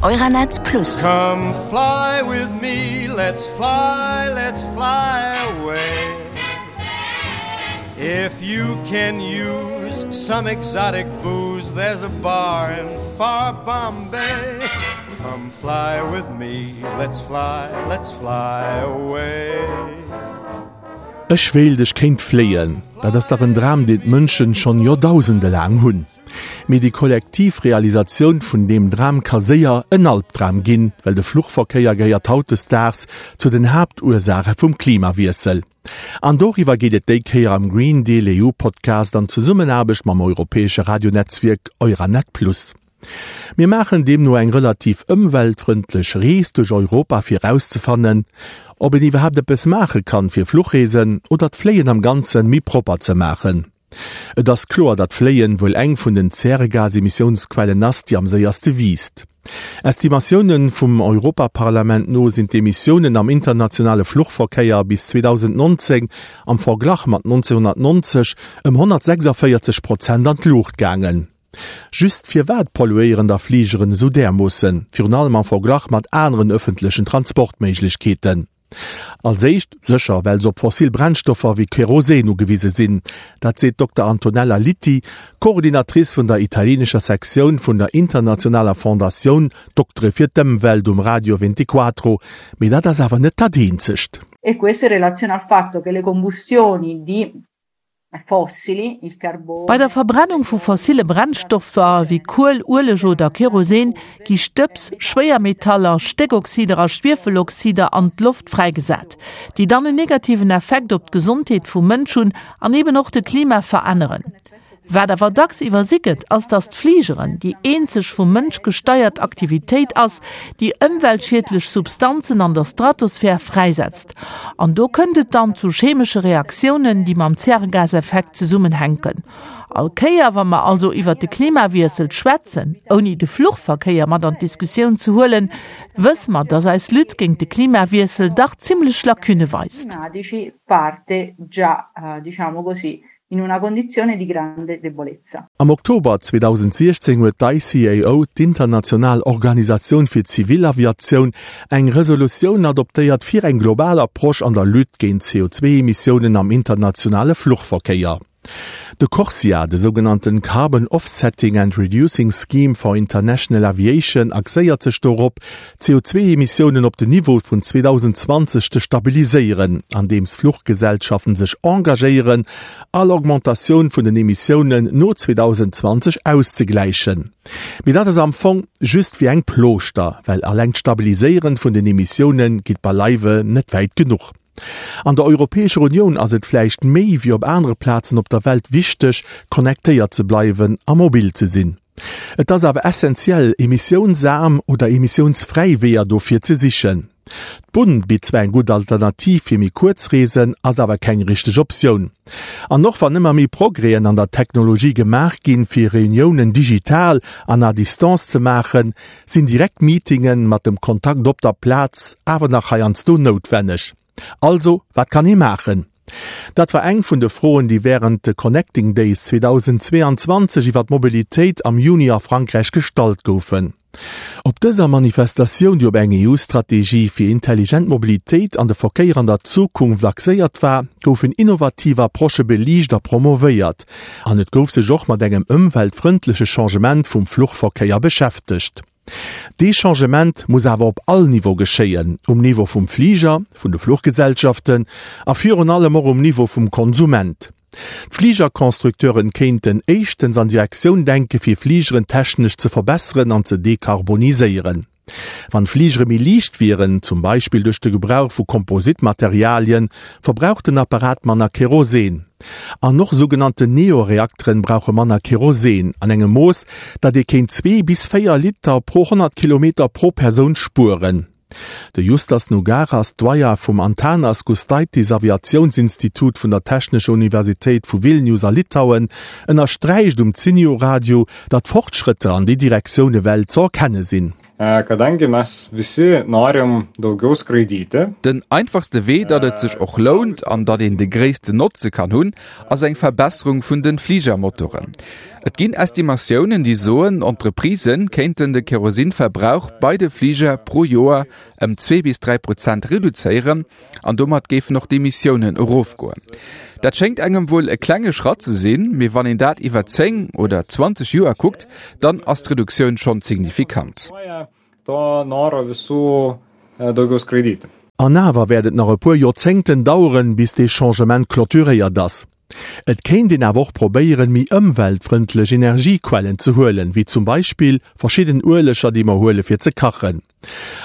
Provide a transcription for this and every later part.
Euranet Plus. Come fly with me, let's fly, let's fly away. If you can use some exotic booze, there's a bar in far Bombay. Come fly with me, let's fly, let's fly away. Ech wéilt ech kéint fléien, dat ass dach en Dram deen d'Mënschen schonn Joerdausende laang hunn. Mee déi kollektiv Realisatioun vun deem Dram ka séier en Albdram ginn, well de Fluchverkéier gehéiert hautdesdaags zu den Haaptursaache vum Klimawiessel. An doriwwer geet et déi Kéier am Green Deal EU Podcast an Zesummenaarbecht mam europäesche Radionetzwierk Euranet Plus. Mir maachen deemno eng relativ ëmweltfrëndlech Rees duerch Europa fir erauszefannen, ob een iwwerhaapt eppes maache kann fir Fluchreesen oder d'Fléien am Ganzen méi propper ze maachen. Et ass kloer, datt Fléien wuel eng vun den Zäregasemissiounsquellen ass, déi am séierste wiisst. Estimatioune vum Europaparlament no sinn d'Emissiounen am internationale Fluchverkéier bis 2019 am Verglach mat 1990 ëm 146 Prozent an d'Luucht gaangen. Just firwat polluéieren da Fligeren esou därmoossen, virun allem am Verglach mat aneren ëffentlechen Transportméiglechkeeten? Als éischt sécher, well se op fossil Brennstoffer wéi Kerosin ugewise sinn. Dat seet d'Dokter Antonella Litti, Coordinatrice vun der italienescher Sektioun vun der internationaler Fondatioun Doktere fir d'Ëmwelt um Radio Ventiquatro. Mee dat ass awer net dat eenzegt. E questo in relazione al fatto che le combustioni di Bei der Verbrennung vu fossille Brennstoffer wéi Kuel, Ueleg oder Kerosin gi Stëbs, Schwéiermetaller, Stéckoxider a Schwiefeloxider an d'Loft fräigesat, déi dann en negativen Effekt op d'Gesondheet vum Mënsch hunn an eben och de Klima veränneren. Wat awer dacks iwwersi gëtt, ass, datt d'Fligeren déi eenzeg vum Mënsch gesteiert Aktivitéit ass, déi ëmweltschiedlech Substanzen an der Stratosphär fräisetzt. An do kënnt et dann zu chemesche Reaktiounen, déi mam Zäregaseffekt zesummenhänken. All Kéier, wa mer also iwwert de Klimawiessel schwätzen, ouni de Fluchverkéier mat an d'Diskussioun ze huelen, wësse mer, datt eis Lutte géint de Klimawiessel dach zimlech Lacunne weist. in una condizione di grande debolezza. Am Oktober 2016 huet d'ICAO, d'international Organisatioun fir d'Zivilaviatioun, eng Resolutioun adoptéiert fir eng global Approche an der Lutte géint d'CO2-Emissiounen am internationale Fluchverkéier. De CORSIA, de sougenannten Carbon Offsetting and Reducing Scheme for International Aviation, axéiert sech dorop, d'CO2-Emissiounen op den Niveau vun 2020 ze stabiliséieren, andeems Fluchgesellschaften sech engagéieren, all Augmentatioun vun den Emissiounen no 2020 auszegläichen. Mee dat ass am Fong just wéi eng Plooschter, well alleng d'Stabiliséieren vun den Emissiounen geet beileiwe net wäit genuch. An der Europäescher Unioun ass et vläicht méi wéi op anere Plazen op der Welt wichteg, connectéiert ze bleiwen a mobil ze sinn. Et ass awer essentiell, emissiounsaarm oder emissiounsfräi Weeër dofir ze sichen. D'Bunn bitt zwar eng gutt Alternativ fir méi kuerz Reesen, ass awer keng richteg Optioun. An och wann ëmmer méi Progrèsen an der Technologie gemaach ginn, fir Reuniounen digital an à distance ze maachen, sinn direkt Meetinge mat dem Kontakt op der Plaz awer nach heiansdo noutwenneg. Also, wat kann ee maachen? Dat war eng vun de Froen, déi wärend de Connecting Days 2022 iwwer d'Mobilitéit am Juni a Frankräich gestallt goufen. Op dëser Manifestatioun, déi op eng EU-Strategie fir intelligent Mobilitéit an de Verkéier an der Zukunft axéiert war, goufen innovativ Approchë beliicht a promovéiert an et gouf sech och mat engem ëmweltfrëndleche Changement vum Fluchverkéier beschäftegt. Dee Changement muss awer op all Niveau geschéien, um Niveau vum Fliger, vun de Fluchgesellschaften a virun allem och um Niveau vum Konsument. D'Fligerconstructeuren kéinten éischtens an Direktioun denke fir Fligeren technesch ze verbesseren an ze dekarboniséieren. Wann Fligere méi liicht wieren, zum Beispill duerch de Gebrauch vu Kompositmaterialien, verbraucht den Apparat manner Kerosin. An och sougenannten Neo-Reakteren brauche manner Kerosin, an engem Mooss, datt ee kéint 2 bis 4 Liter pro 100 Kilometer pro Persoun spueren. De Justas Nugaras, Doyen vum Antanas Gustaitis Aviatiounsinstitut vun der Technescher Universitéit vu Vilnius a Litauen, ënnersträicht um Zinio Radio, datt Fortschrëtter an déi Direktioun ewell ze erkenne sinn. Kadangi mes visi norim daugiau skraidyti. Den einfachste Wee, datt et sech och lount an datt een de gréissten Notze kann hunn, ass eng Verbesserung vun de Fligermotoren. Et ginn Estimatiounen, déi soen, Entreprisë kéinten de Kerosinverbrauch bei de Fliger pro Joer ëm 2 bis 3 Prozent reduzéieren an domat géifen och d'Emissiounen erofgoen. Dat schéngt engem wuel e klenge Schratt ze sinn, mee wann een dat iwwer 10 oder 20 Joer kuckt, dann ass d'Reduktioun schonn signifikant. An awer wäert et nach e puer Joerzéngten daueren, bis dee Changement clôturéiert ass. Et kéint een awer och probéieren, méi ëmweltfrëndlech Energiequellen ze huelen, wéi zum Beispill verschidden Ueleger, déi mer huele fir ze kachen.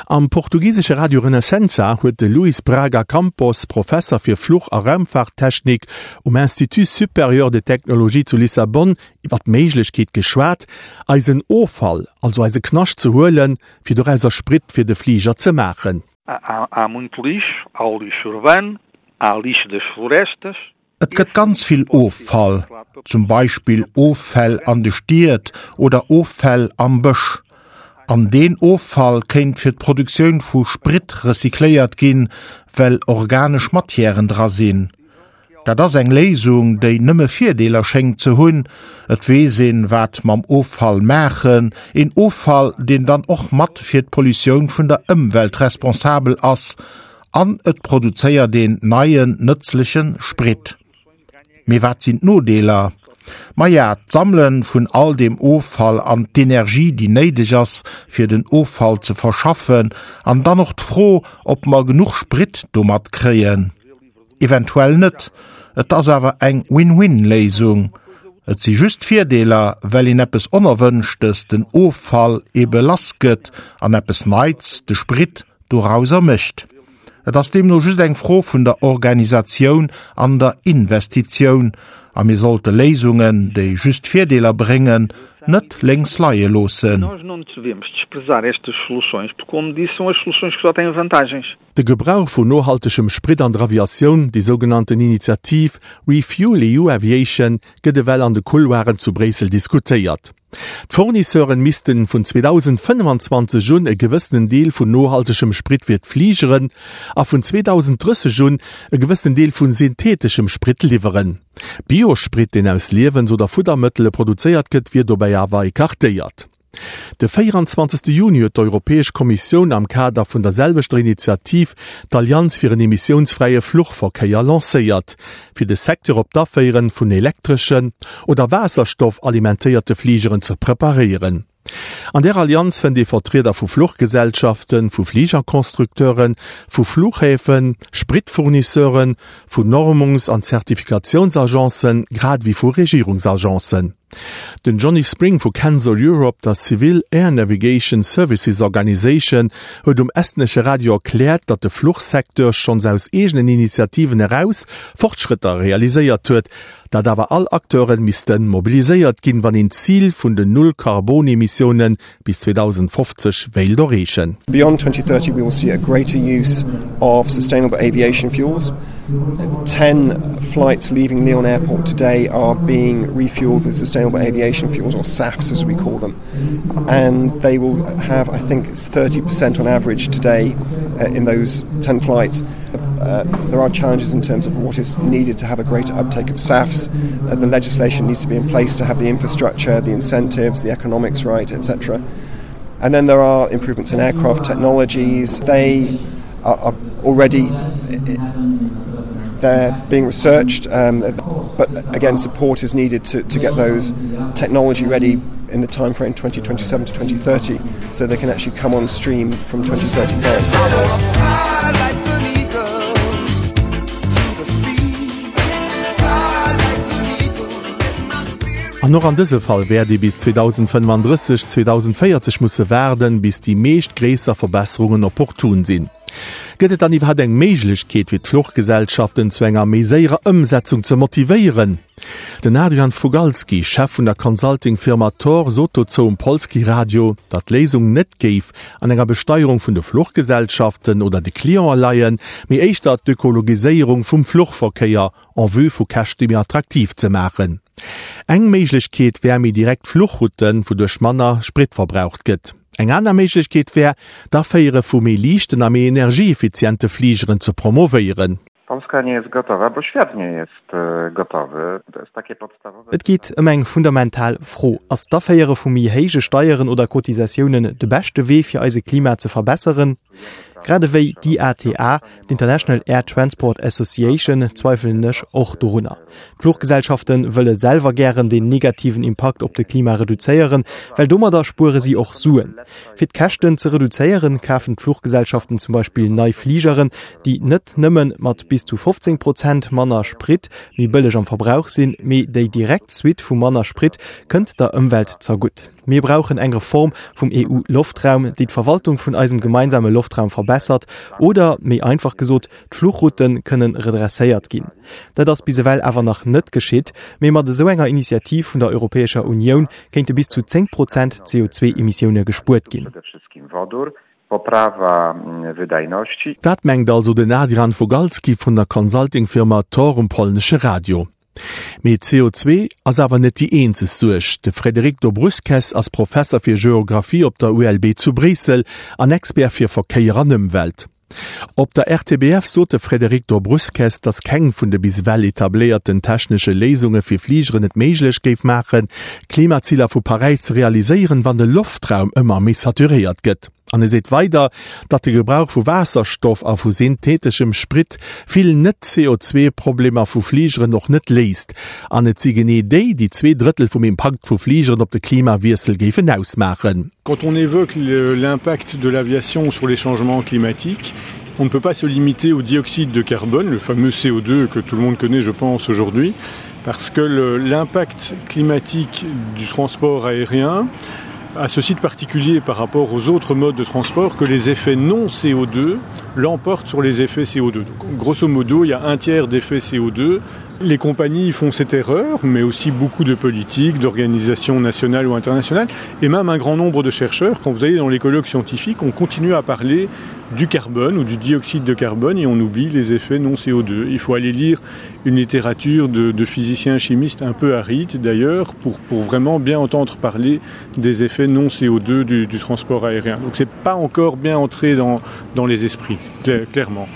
Am portugisesche Radio Renascença huet de Luís Braga Campos, Professer fir Fluch a Raumfaarttechnik um Institut Supérieur de Technologie zu Lissabon, iwwer d'Méiglechkeet geschwat, eisen Offall, also eise Knascht ze huelen, fir dorauser Sprit fir de Fliger ze maachen. Há muito lixo, há o lixo urbano, há lixo das florestas. Et gëtt ganz vill Offall, zum Beispill Offäll an de Stied oder Offäll am Bësch. An deen Offall kéint fir d'Produktioun vu Sprit recycléiert ginn, well organesch Matièren dra sinn. Dat ass eng Léisung, déi nëmme Virdeeler schéngt ze hunn, Et weess een, wat mam Offall maachen, een Offall, deen dann och mat fir d'Pollutioun vun der Ëmwelt responsabel ass, an et produzéiert een neien, nëtzleche Sprit. Mee wat sinn d'Nodeeler? Maja, d'Sammele vun all deem Offall an d'Energie, déi néideg ass, fir den Offall ze verschaffen, an dann och d'Fro, ob mer genuch Sprit domat kréien. Eventuell net. Et ass awer eng Win-Win-Léisung. Et si just Virdeeler, well een eppes Onerwënschtes, den Offall, ebe lass gëtt an eppes Neits, de Sprit, dorauser mécht. Et ass deemno just eng Fro vun der Organisatioun an der Investitioun. A mir sollte Léisungen, déi just Virdeeler bréngen, net lénks leie loossen. De Gebrauch vun nohaltegem Sprit an der Aviatioun, déi sougenannten Initiativ ReFuelEU Aviation, gëtt ewell an de Couloiren zu Bréissel diskutéiert. D'Fournisseuren missten vun 2025 un e gewëssenen Deel vun nohaltegem Sprit fir d'Fligeren a vun 2030 un e gewëssenen Deel vu syntheteschem Sprit liwweren. Biosprit, deen aus Liewens oder Fuddermëttele produzéiert gëtt, wier dobäi awer ecartéiert. De 24. Juni huet d'Europäesch Kommissioun am Kader vun der selwechter Initiativ d'Allianz fir en emissiounsfräie Fluchverkéier lancéiert, fir de Secteur op d'Aféieren vun elektreschen oder Waasserstoff-alimentéierte Fligeren ze preparéieren. An där Allianz fënnt ee Vertrieder vu Fluchgesellschaften, vu Fligerconstructeuren, vu Flughäfen, Spritfournisseuren, vu Normungs an Zertifikatiounsagencen, grad ewéi vu Regierungsagencen. Den Johnny Spring vu Canso Europe, der Civil Air Navigation Services Organisation, huet um estnesche Radio erkläert, datt de Fluchsecteur schonns aus eegenen Initiativen eraus Fortschrëtter realiséiert huet, datt awer all Acteure misste mobiliséiert ginn, wann een d'Zil vun den Null-Karbon-Emissioune bis 2050 wéilt erreechen. Beyond 2030 we will see a greater use of sustainable aviation fuels. 10 flights leaving Lyon Airport today are being refueled with sustainable aviation fuels or SAFs as we call them. And they will have, I think it's 30% on average today uh, in those 10 flights. Uh, there are challenges in terms of what is needed to have a greater uptake of SAFs. Uh, the legislation needs to be in place to have the infrastructure, the incentives, the economics right, etc. And then there are improvements in aircraft technologies. They are, are already they're being researched, um, but again support is needed to, to get those technology ready in the time frame 2027 to 2030 so they can actually come on stream from 2035. An och an dëse Fall wäert ee bis 2035, 2040 musse waarden, bis déi meescht gréisser Verbesserungen opportun sinn. Gëtt et dann iwwerhaapt eng Méiglechkeet, fir d'Fluchgesellschaften zu enger méi séierer Ëmsetzung ze motivéieren? Den Adrian Fugalski, Chef vun der Consulting-Firma Tor, sot dozou um Polskie Radio, datt d'Léisung net géif an enger Besteierung vun de Fluchgesellschaften oder de Clientë leien, mee éischter d'Ökologiséierung vum Fluchverkéier en vue vu Käschte méi attraktiv ze maachen. Eng Méiglechkeet wär méi direkt Fluchrouten, wouduerch manner Sprit verbraucht gëtt. Eng aner Méiglechkeet wär, d'Aféiere vu méi liichten a méi energieeffiziente Fligeren ze promovéieren. Polska nie jest gotowa, bo świat nie jest gotowy. To jest takie podstawowe. Et geet ëm eng fundamental Fro, Ass d'Aféiere vu méi héije Steieren oder Cotisatiounen de beschte Wee fir eise Klima ze verbesseren? Grad ewéi d'IATA, d'International Air Transport Association, zweifelen ech och dorunner. D'Fluchgesellschafte wëlle selwer gären den negativen Impakt op de Klima reduzéieren, well domadder spuere si och Suen. Fir d'Käschten ze reduzéieren, kafen d'Fluchgesellschaften zum Beispill nei Fligeren, déi net nëmme mat bis zu 15 Prozent manner Sprit méi bëlleg am Verbrauch sinn, mee déi direkt Suite vu manner Sprit kënnt der Ëmwelt zergutt. Mir brauchen eng Reform vum EU-Loftraum, déi d'Verwaltung vun eisem gemeinsame Loftraum verbessert oder, méi einfach gesot, d'Fluchroute kënnen redresséiert ginn. Dat ass bis ewell awer nach net geschitt, mee mat esou enger Initiativ vun der Europäescher Unioun kéinte bis zu 10 Prozent CO2-Emissioune gespuert ginn. Dat mengt also den Adrian Fogalski vun der Consulting-Firma Tor um polnesche Radio. Mee CO2 ass awer net déi eenzeg Suerg. De Frédéric Dobrusques ass Professer fir Geographie op der ULB zu Bréissel an Expert fir Verkéier an Ëmwelt. Op der RTBF sot de Frédéric Dobrusques, datt keng vun de bis ewell etabléierten technesche Léisunge fir Fligeren et méiglech géif maachen, d'Klimaziler vu Paräis ze realiséieren, wann de Loftraum ëmmer méi saturéiert gëtt. An e seet weider, datt de Gebrauch vu Waasserstoff a vu syntheteschem Sprit vill Net-CO2-Problemer vu Fligeren och net léist. An et si genee déi, déi 2 Drëttel vum Impakt vu Fligeren op de Klimawiessel géifen ausmaachen. Quand on évoque l'impact de l'aviation sur les changements climatiques, on ne peut pas se limiter au dioxyde de carbone, le fameux CO2 que tout le monde connaît, je pense, aujourd'hui, parce que l'impact climatique du transport aérien a ceci de particulier par rapport aux autres modes de transport que les effets non CO2 l'emportent sur les effets CO2. Donc, grosso modo, il y a un tiers d'effets CO2. Les compagnies font cette erreur, mais aussi beaucoup de politiques, d'organisations nationales ou internationales, et même un grand nombre de chercheurs, quand vous allez dans les colloques scientifiques, on continue à parler du carbone ou du dioxyde de carbone et on oublie les effets non CO2. Il faut aller lire une littérature de, de physiciens chimistes un peu aride d'ailleurs pour, pour vraiment bien entendre parler des effets non CO2 du, du transport aérien. Donc c'est pas encore bien entré dans, dans les esprits, clairement.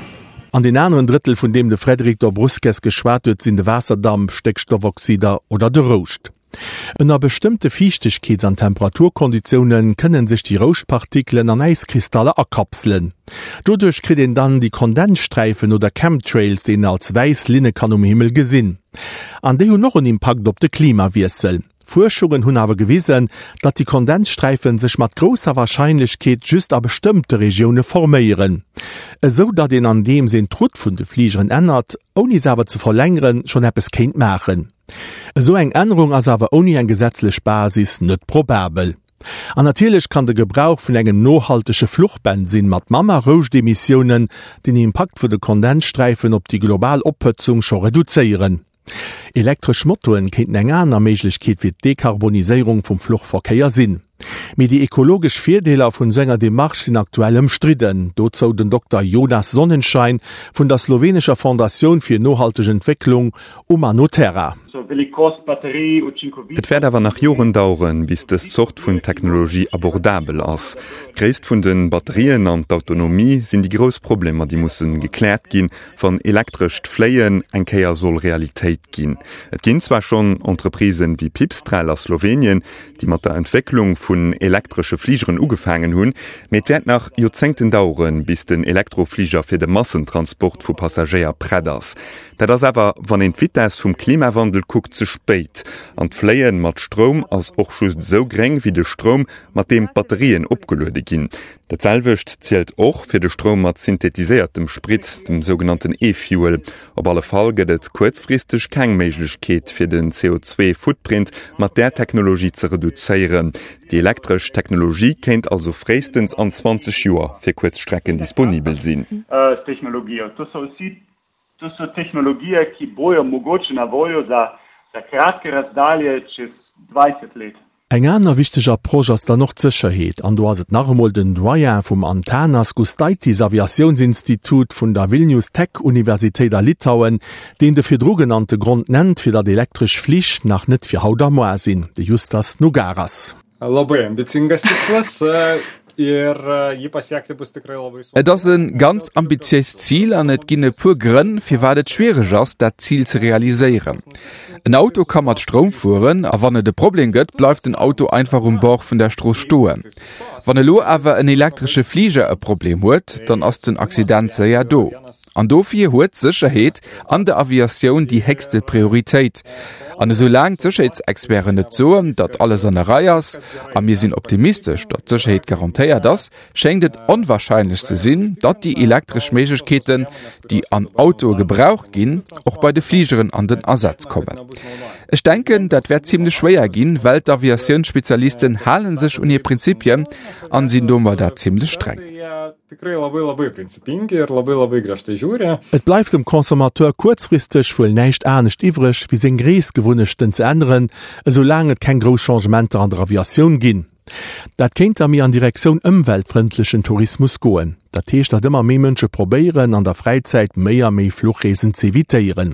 An deen aneren Drëttel, vun deem de Frédéric Dobrusques geschwat huet, sinn de Waasserdamp, Stéckstoffoxider oder de Rouscht. Ënner bestëmmte Fiichtegkeets an Temperaturkonditioune kënne sech déi Rouschtpartikelen an Äiskristaller akapselen. Doduerch kritt een dann déi Kondenssträifen oder Chemtrails, déi een als wäiss Linne kann um Himmel gesinn. An déi hunn och en Impakt op de Klimawiessel. Fuerschungen hunn awer gewisen, datt déi Kondenssträifen sech mat grousser Warscheinlechkeet just a bestëmmte Regioune forméieren, esou datt een andeems een d'Route vun de Fligeren ännert, ouni se awer ze verlängeren, schonn eppes kéint maachen. Esou eng Ännerung ass awer ouni eng gesetzlech Basis net probabel. An natierlech kann de Gebrauch vun engem nohaltege Fluchbensinn mat manner Rouschtemissiounen den Impakt vun de Kondenssträifen op déi global Ophëtzung scho reduzéieren. Elektresch Motoen kéinten eng aner Méiglechkeet fir d'Dekarboniséierung vum Fluchverkéier sinn. Mee déi ekologesch Virdeeler vun esou enger Demarche sinn aktuell ëmstridden. Dozou den Dokter Jonas Sonnenschein vun der slowenescher Fondatioun fir nohalteg Entwécklung Umanoterra. Et wäert awer nach Joren daueren, bis dës Zort vun Technologie abordabel ass. D'Gréisst vun de Batterien an d'Autonomie sinn déi grouss Problemer, déi musse gekläert ginn, wann elektrescht Fléien eng Kéier soll Realitéit ginn. Et ginn zwar schonn Entreprisen wéi Pipistrel a Slowenien, déi mat der Entwécklung vun elektresche Fligeren ugefaangen hunn, mee et wäert nach Joerzéngten daueren, bis den Elektrofliger fir de Massentransport vu Passagéier prett ass. Dat ass awer, wann een d'Vitess vum Klimawandel kuckt, ze spéit. An d'Fléien mat Stroum ass och just esou gréng wéi de Stroum, mat deem d'Batterien opgeluede ginn. Dat selwecht zielt och fir de Stroum mat synthetiséiertem Sprit, dem sougenannten E-Fuel. Op alle Fall gëtt et kuerzfristeg keng Méiglechkeet, fir den CO2-Footprint mat där Technologie ze reduzéieren. Déi elektresch Technologie kéint also fréistens an 20 Joer fir kuerz Strecken disponibel sinn. To so tehnologije, ki bojo mogoče na voljo za. Za kratke razdalje čez 20 let. Eng aner wichteg Approche ass dann och d'Sécherheet, an do ass et nach emol den Doyen vum Antanas Gustaitis Aviatiounsinstitut vun der Vilnius Tech Universitéit a Litauen, deen de virdru genannte Grond nennt, fir datt elektresch Flich nach net fir haut a moar sinn, de Justas Nugaras. Labai ambicingas tikslas ir jį pasiekti bus tikrai labai sunku. Et ass e ganz ambitiéist Zil an et ginn e puer Grënn, firwat et schwiereg ass, dat Zil ze realiséieren. En Auto ka mat Stroum fueren a wann et e Problem gëtt, bleift den Auto einfach um Bord vun der Strooss stoen. Wann elo awer en elektresche Fliger e Problem huet, dann ass den Accident séier do. An dofir huet d'Sécherheet an der Aviatioun déi héchste Prioritéit. An esou laang d'Sécherheetsexperten net soen, datt alles an der Rei ass, a mir sinn optimistesch, datt d'Sécherheet garantéiert ass, schéngt et onwahrscheinlech ze sinn, datt déi elektresch Méiglechkeeten, déi an Autoe gebraucht ginn, och bei de Fligeren an den Asaz kommen. Ech denken, dat wäert zimlech schwéier ginn, well d'Aviatiounsspezialisten hale sech un hir Prinzipien an sinn domadder zimlech streng. Tikrai labai labai principingi ir labai labai griežtai žiūri. Et bleift dem Consommateur kuerzfristeg wuel näischt anescht iwwreg, wéi seng Reesgewunnechten ze änneren, esou laang et keng grouss Changementer an der Aviatioun ginn. Dat kéint da méi an Direktioun ëmweltfrëndlechen Tourismus goen. Dat heescht, datt ëmmer méi Mënsche probéieren, an der Fräizäit méi a méi Fluchreesen z'evitéieren.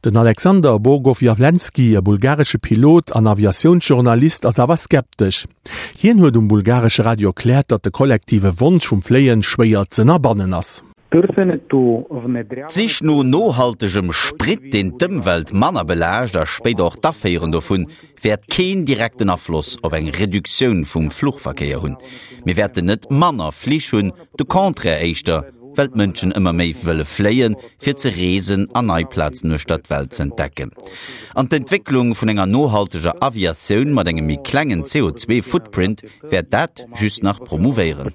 Den Alexander Bogowyawlenski, e bulgaresche Pilot an Aviatiounsjournalist, ass awer skeptesch. Hien huet um bulgaresche Radio erkläert, datt de kollektive Wonsch vum Fléien schwéier z'ënnerbannen ass. D'Sich no nohaltegem Sprit, deen d'Ëmwelt manner belaascht a spéider och d'Aféieren dovun, wäert keen direkten Afloss op eng Reduktioun vum Fluchverkéier hunn. Mir wäerten net manner Flich hunn, de Contraire éischter, well d'Mënschen ëmmer méi wëlle fléien, fir ze reesen an nei Plazen uechter d'Welt z'entdecken. An d'Entwécklung vun enger nohalteger Aviatioun mat engem méi klengen CO2-Footprint wäert dat just nach promouvéieren.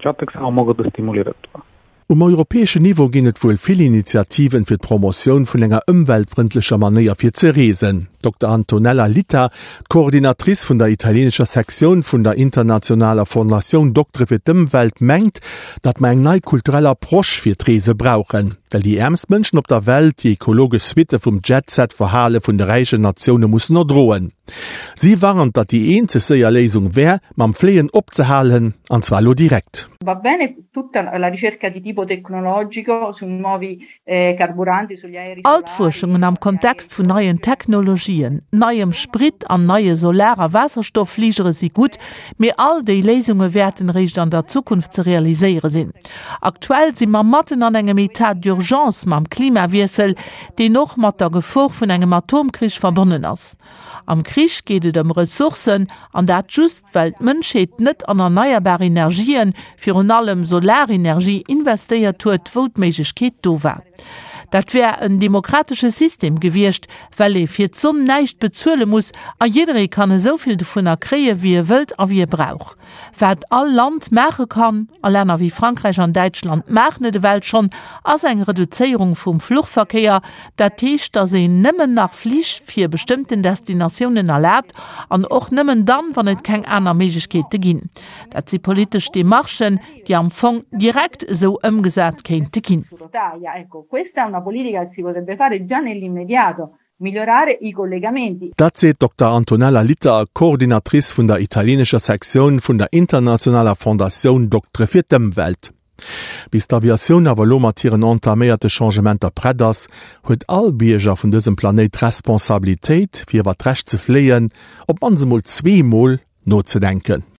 Um europäeschen Niveau ginn et wuel vill Initiativen fir d'Promotioun vun enger ëmweltfrëndlecher Manéier fir ze reesen. D'Dokter Antonella Litta, d'Coordinatrice vun der italienescher Sektioun vun der internationaler Fondatioun Doktere fir d'Ëmwelt, mengt, datt mer eng nei kulturell Approche fir d'Reese brauchen, well déi äermst Mënschen op der Welt déi ekologesch Suitte vum Jet-Set-Verhale vun de räichen Natioune mussen erdroen. Si warnt, datt déi eenzeg séier Léisung wär, mam Fléien opzehalen, an zwar elo direkt. Va bene tutta la ricerca di tipo tecnologico su nuovi carburanti, sugli aerei All d'Fuerschungen am Kontext vun neien Technologien, neiem Sprit an neie Solar a Waasserstofffligere si gutt, mee all déi Léisunge wäerten eréischt an der Zukunft ze realiséiere sinn. Aktuell si mer matten an engem Etat d'urgence mam Klimawiessel, deen och mat der Gefor vun engem Atomkrich verbonnen ass. Am Krich geet et ëm Ressourcen, an dat just, well d'Mënschheet net an erneierbar Energien, virun allem Solarenergie, investéiert huet, wou d'Méiglechkeet do war. Dat wär en demokratesche System gewiescht, well ee fir d'Sonn näischt bezuele muss a jidderee kann esou vill dovunner kréie wéi e wëllt a wéi e brauch. Wat all Land maache kann, a Länner wéi Frankräich an Däitschland maachen et ewell schonn, ass eng Reduzéierung vum Fluchverkéier. Dat heescht, datt een nëmmen nach Flich fir bestëmmten Destinatiounen erlaabt an och nëmmen dann, wann et keng aner Méiglechkeete ginn. Dat si politesch Demarchen, déi am Fong direkt esou ëmgesat kéinte ginn. Migliorare i collegamenti. Dat seet d'Dokter Antonella Litta, Coordinatrice vun der italienescher Sektioun vun der internationaler Fondatioun Doktere fir d'Ëmwelt. Bis d'Aviatioun awer elo mat hiren entaméierte Changementer prett ass, huet all Bierger vun dësem Planéit d'Responsabilitéit, fir iwwer d'Recht ze fléien, op d'mannst emol zweemol nozedenken.